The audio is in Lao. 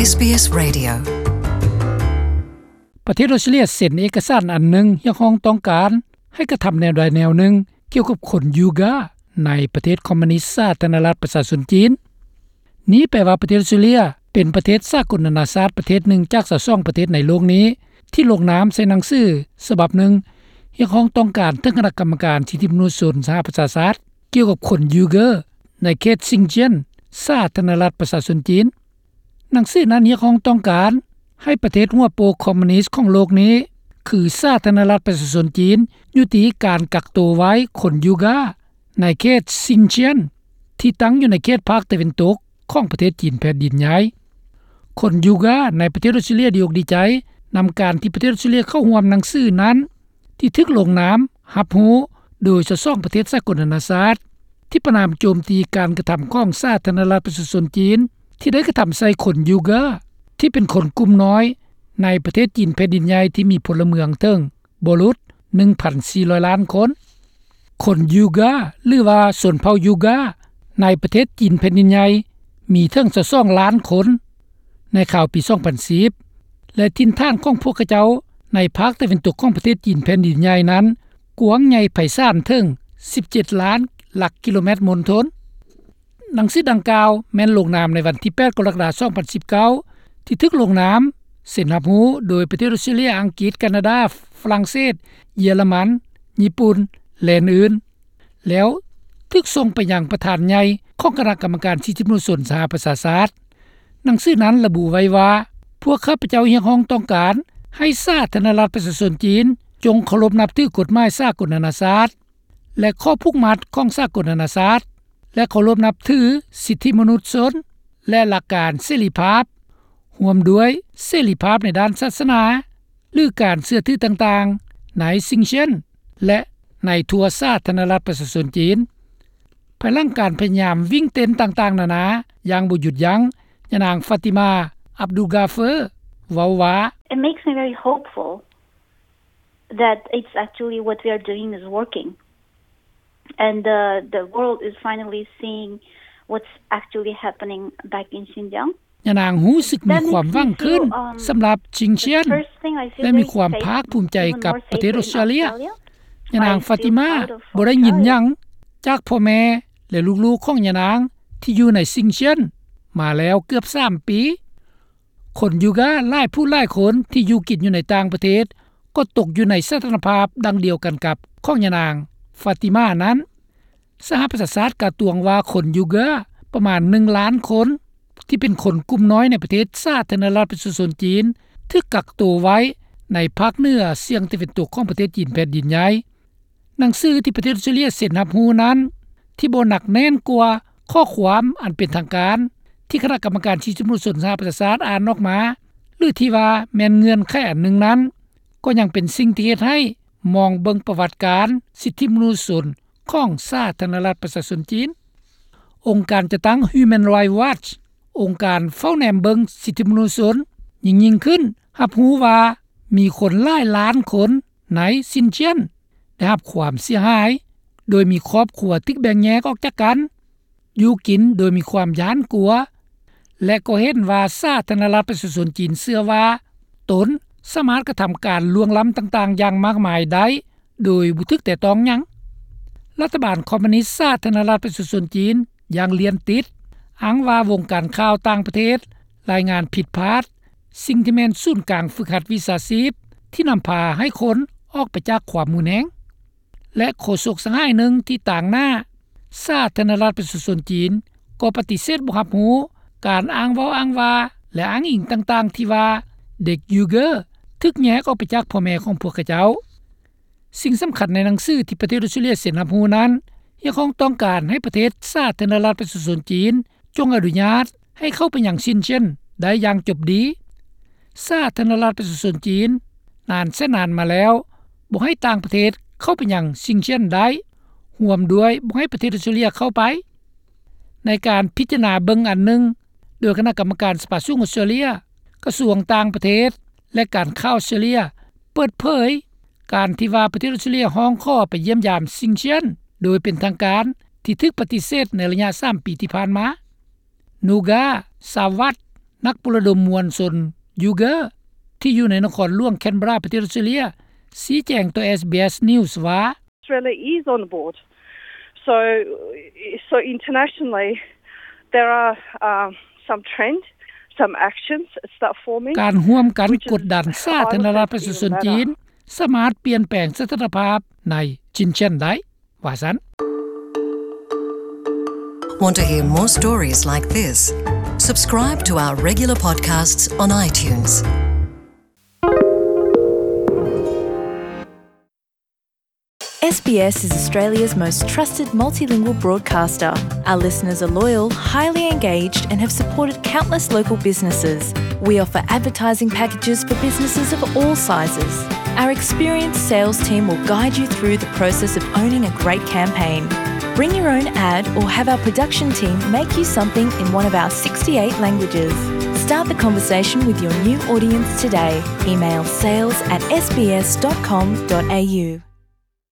ເອສບີເອສ Radio. ປະເທດອົດສະຕຣາເລຍເຊັນເອກະສານອັນໜຶ່ງ ຮຽກຮ້ອງຕ້ອງການໃຫ້ກະທຳແນວໃດແນວໜຶ່ງ ກ່ຽວກັບຄົນຢູກາໃນປະເທດຄອມມູນິດສາທາລະນະລັດປະຊາຊົນຈີນ. ນີ້ແປວ່າປະເທດອົດສະຕຣາເລຍເປັນປະເທດສາກົນນານາຊາດປະເທດໜຶ່ງຈາກຊາວສອງປະເທດໃນໂລກນີ້ ທີ່ລົງນາມໃສ່ໜັງສືສະບັບໜຶ່ງ ຮຽກຮ້ອງຕ້ອງການເຖິງຄະນະກຳມະການສິດທິມະນຸດຊົນສະຫະປະຊາຊາດ ກ່ຽວກັບຄົນຢູກາໃນເຂດຊິງຈຽນ ສາທາລະນະລັດປະຊາຊົນຈີນ. ໜັງສືນັ້ນຮຽກຮ້ອງຕ້ອງການໃຫ້ປະເທດຫົວໂປກຄອມມູນິດຂອງໂລກນີ້ ຄືສາທາລະນະລັດປະຊາຊົນຈີນ ຍຸຕິການກັກໂຕໄວ້ຄົນຢູກາໃນເຂດຊິງຈຽນ ທີ່ຕັ້ງຢູ່ໃນເຂດພາກຕາເວັນຕົກຂອງປະເທດຈີນແຜ່ນດິນໃຫຍ່. ຄົນຢູກາໃນປະເທດອົດສະຕຣາເລຍດີອົກດີໃຈນຳການທີ່ປະເທດອົດສະຕຣາເລຍເຂົ້າຮ່ວມໜັງສືນັ້ນ ທີ່ຖືກລົງນາມຮັບຮູ້ໂດຍຊາວສອງປະເທດສາກົນນານາຊາດ ທີ່ປະນາມໂຈມຕີການກະທຳຂອງສາທາລະນະລັດປະຊາຊົນຈີນ ທີ່ໄດ້ກະທຳໃສ່ຄົນຢູກາ ທີ່ເປັນຄົນກຸ່ມນ້ອຍໃນປະເທດຈີນແຜ່ນດິນໃຫຍ່ ທີ່ມີພົນລະເມືອງເຖິງບໍ່ຫຼຸດໜຶ່ງພັນສີ່ຮ້ອຍລ້ານຄົນ. ຄົນຢູກາ ຫຼືວ່າຊົນເຜົ່າຢູກາ ໃນປະເທດຈີນແຜ່ນດິນໃຫຍ່ມີເຖິງຊາວສອງລ້ານຄົນໃນຄາວປີສອງພັນສິບ ແລະ ຖິ່ນຖານຂອງພວກເຂົາເຈົ້າໃນພາກຕາເວັນຕົກຂອງປະເທດຈີນແຜ່ນດິນໃຫຍ່ນັ້ນ ກວ້າງໃຫຍ່ໄພສານເຖິງສິບເຈັດລ້ານຫຼັກກິໂລແມັດມົນທົນ. ໜັງສືດັ່ງກ່າວແມ່ນລົງນາມໃນວັນທີແປດ ກໍລະກະດາ ສອງພັນສິບເກົ້າ ທີ່ຖືກລົງນາມເຊັນຮັບຮູ້ໂດຍປະເທດອົດສະຕຣາເລຍ, ອັງກິດ, ການາດາ, ຝຣັ່ງເສດ, ເຢຍລະມັນ, ຍີ່ປຸ່ນ ແລະ ອື່ນໆ ແລ້ວຖືກສົ່ງໄປຍັງປະທານໃຫຍ່ຂອງຄະນະກຳມະການສິດທິມະນຸດຊົນສະຫະປະຊາຊາດ. ໜັງສືນັ້ນລະບຸໄວ້ວ່າ ພວກຂ້າພະເຈົ້າຮຽກຮ້ອງຕ້ອງການໃຫ້ສາທາລະນະລັດປະຊາຊົນຈີນ ຈົ່ງເຄົາລົບນັບຖືກົດໝາຍສາກົນນານາຊາດ ແລະ ຂໍ້ຜູກມັດຂອງສາກົນນານາຊາດ ແລະ ເຄົາລົບນັບຖືສິດທິມະນຸດຊົນ ແລະ ຫຼັກການເສລີພາບ ຮ່ວມດ້ວຍເສລີພາບໃນດ້ານສາສະໜາ ຫຼື ການເຊື່ອຖືຕ່າງໆ ໃນຊິງເຊຍນ ແລະ ໃນທົ່ວສາທາລະນະລັດປະຊາຊົນຈີນ. ພາຍຫຼັງການພະຍາຍາມວິ່ງເຕັ້ນຕ່າງໆນານາຢ່າງບໍ່ຢຸດຢັ້ງ, ຍານາງ ຟາຕິມາ ອັບດູກາເຟີ ເວົ້າວ່າ, It makes me very hopeful that it's actually what we are doing is working and the the world is finally seeing what's actually happening back in Xinjiang. ຍານາງຮູ້ສຶກມີຄວາມຫວັງຂຶ້ນສຳລັບຊິງເຊຍນ ແລະ ມີຄວາມພາກພູມໃຈກັບປະເທດອົດສະຕຣາເລຍ. ຍານາງ ຟາຕິມາ ບໍ່ໄດ້ຍິນຫຍັງຈາກພໍ່ແມ່ ແລະ ລູກໆຂອງຍານາງທີ່ຢູ່ໃນຊິງເຊຍນມາແລ້ວເກືອບສາມປີ. ຄົນຢູກາຫຼາຍຜູ້ຫຼາຍຄົນທີ່ຢູ່ກິນຢູ່ໃນຕ່າງປະເທດ ກໍຕົກຢູ່ໃນສະຖານະພາບດັ່ງດຽວກັນກັບຂອງຍານາງ ຟາຕິມາ ນັ້ນ. ສະຫະປະຊາຊາດກະຕວງວ່າຄົນຢູກາປະມານໜຶ່ງລ້ານຄົນ ທີ່ເປັນຄົນກຸ່ມນ້ອຍໃນປະເທດສາທາລະນະລັດປະຊາຊົນຈີນ ຖືກກັກໂຕໄວ້ໃນພາກເໜືອສ່ຽງຕາເວັນຕົກຂອງປະເທດຈີນແຜ່ນດິນໃຫຍ່. ໜັງສືທີ່ປະເທດອົດສະຕຣາເລຍເຊັນຮັບຮູ້ນັ້ນ ທີ່ບໍ່ໜັກແໜ້ນກວ່າຂໍ້ຄວາມອັນເປັນທາງການ ທີ່ຄະນະກຳມະການສິດທິມະນຸດຊົນສະຫະປະຊາຊາດອ່ານອອກມາ ຫຼື ທີ່ວ່າແມ່ນເງື່ອນໄຂອັນໜຶ່ງນັ້ນ ກໍຍັງເປັນສິ່ງທີ່ເຮັດໃຫ້ມອງເບິ່ງປະຫວັດການສິດທິມະນຸດຊົນຂອງສາທາລະນະລັດປະຊາຊົນຈີນ. ອົງການຈັດຕັ້ງ Human Rights Watch ອົງການເຝົ້າແນມເບິ່ງສິດທິມະນຸດຊົນ ຍິ່ງໆຂຶ້ນ ຮັບຮູ້ວ່າມີຄົນຫຼາຍລ້ານຄົນໃນຊິນຈຽນ ໄດ້ຮັບຄວາມເສຍຫາຍ ໂດຍມີຄອບຄົວຖືກແບ່ງແຍກອອກຈາກກັນ, ຢູ່ກິນໂດຍມີຄວາມຢ້ານກົວ ແລະ ກໍເຫັນວ່າສາທາລະນະລັດປະຊາຊົນຈີນເຊື່ອວ່າຕົນສາມາດກະທຳການລ່ວງລ້ຳຕ່າງໆຢ່າງມາກມາຍໄດ້ໂດຍບໍ່ຖືກແຕະຕ້ອງຫຍັງ. ລັດຖະບານຄອມມູນິດສາທາລະນະລັດປະຊາຊົນຈີນຢ່າງລຽນຕິດ ອ້າງວ່າວົງການຂ່າວຕ່າງປະເທດລາຍງານຜິດພາດ ສິ່ງທີ່ແມ່ນສູນກາງຝຶກຫັດວິຊາຊີບ ທີ່ນຳພາໃຫ້ຄົນອອກໄປຈາກຄວາມຮຸນແຮງ. ແລະ ໂຄສົກສະຫາຍໜຶ່ງທີ່ຕາງໜ້າສາທາລະນະລັດປະຊາຊົນຈີນ ກໍປະຕິເສດບໍ່ຮັບຮູ້ການອ້າງເວົ້າອ້າງວ່າ ແລະ ອ້າງອີງຕ່າງໆທີ່ວ່າເດັກຢູເກີຖືກແຍກອອກໄປຈາກພໍ່ແມ່ຂອງພວກເຂົາເຈົ້າ. ສິ່ງສຳຄັນໃນໜັງສືທີ່ປະເທດອົດສະຕຣາເລຍເຊັນຮັບຮູ້ນັ້ນ ຮຽກຮ້ອງຕ້ອງການໃຫ້ປະເທດສາທາລະນະລັດປະຊາຊົນຈີນ ຈົ່ງອະນຸຍາດໃຫ້ເຂົ້າໄປຍັງຊິນຈຽນໄດ້ຢ່າງຈົບດີ. ສາທາລະນະລັດປະຊາຊົນຈີນນານແສນນານມາແລ້ວ ບໍ່ໃຫ້ຕ່າງປະເທດເຂົ້າໄປຍັງຊິນຈຽນໄດ້, ຮ່ວມດ້ວຍບໍ່ໃຫ້ປະເທດອົດສະຕຣາເລຍເຂົ້າໄປ. ໃນການພິຈາລະນາເບິ່ງອັນໜຶ່ງ ໂດຍຄະນະກຳມະການສະພາສູງອົດສະຕຣາເລຍ, ກະຊວງຕ່າງປະເທດ ແລະ ການຂ່າວອົດສະຕຣາເລຍ ເປີດເຜີຍການທີ່ວ່າປະເທດອົດສະຕຣາເລຍຮ້ອງຂໍໄປຢ້ຽມຢາມຊິນຈຽນໂດຍເປັນທາງການ ທີ່ຖືກປະຕິເສດໃນໄລຍະສາມປີທີ່ຜ່ານມາ. ນູກາ ຊາວັດ ນັກປຸລະດົມມວນຊົນຢູເກີ ທີ່ຢູ່ໃນນະຄອນຫຼວງແຄນເບຣາ ປະເທດອອສເຕຣເລັຽ ຊີ້ແຈງຕໍ່ SBS News ວ່າ Australia is on board. So, so internationally, there are, um, some trend, some actions start forming. ການຮ່ວມກັນກົດດັນສາທາລະນະລັດປະຊາຊົນຈີນ ສາມາດປ່ຽນແປງສະຖານະພາບໃນຊິນເຈຍນໄດ້ ວ່າຊັ້ນ. Want to hear more stories like this? Subscribe to our regular podcasts on iTunes. SBS is Australia's most trusted multilingual broadcaster. Our listeners are loyal, highly engaged, and have supported countless local businesses. We offer advertising packages for businesses of all sizes. Our experienced sales team will guide you through the process of owning a great campaign. Bring your own ad or have our production team make you something in one of our sixty-eight languages. Start the conversation with your new audience today. Email sales at sbs.com.au.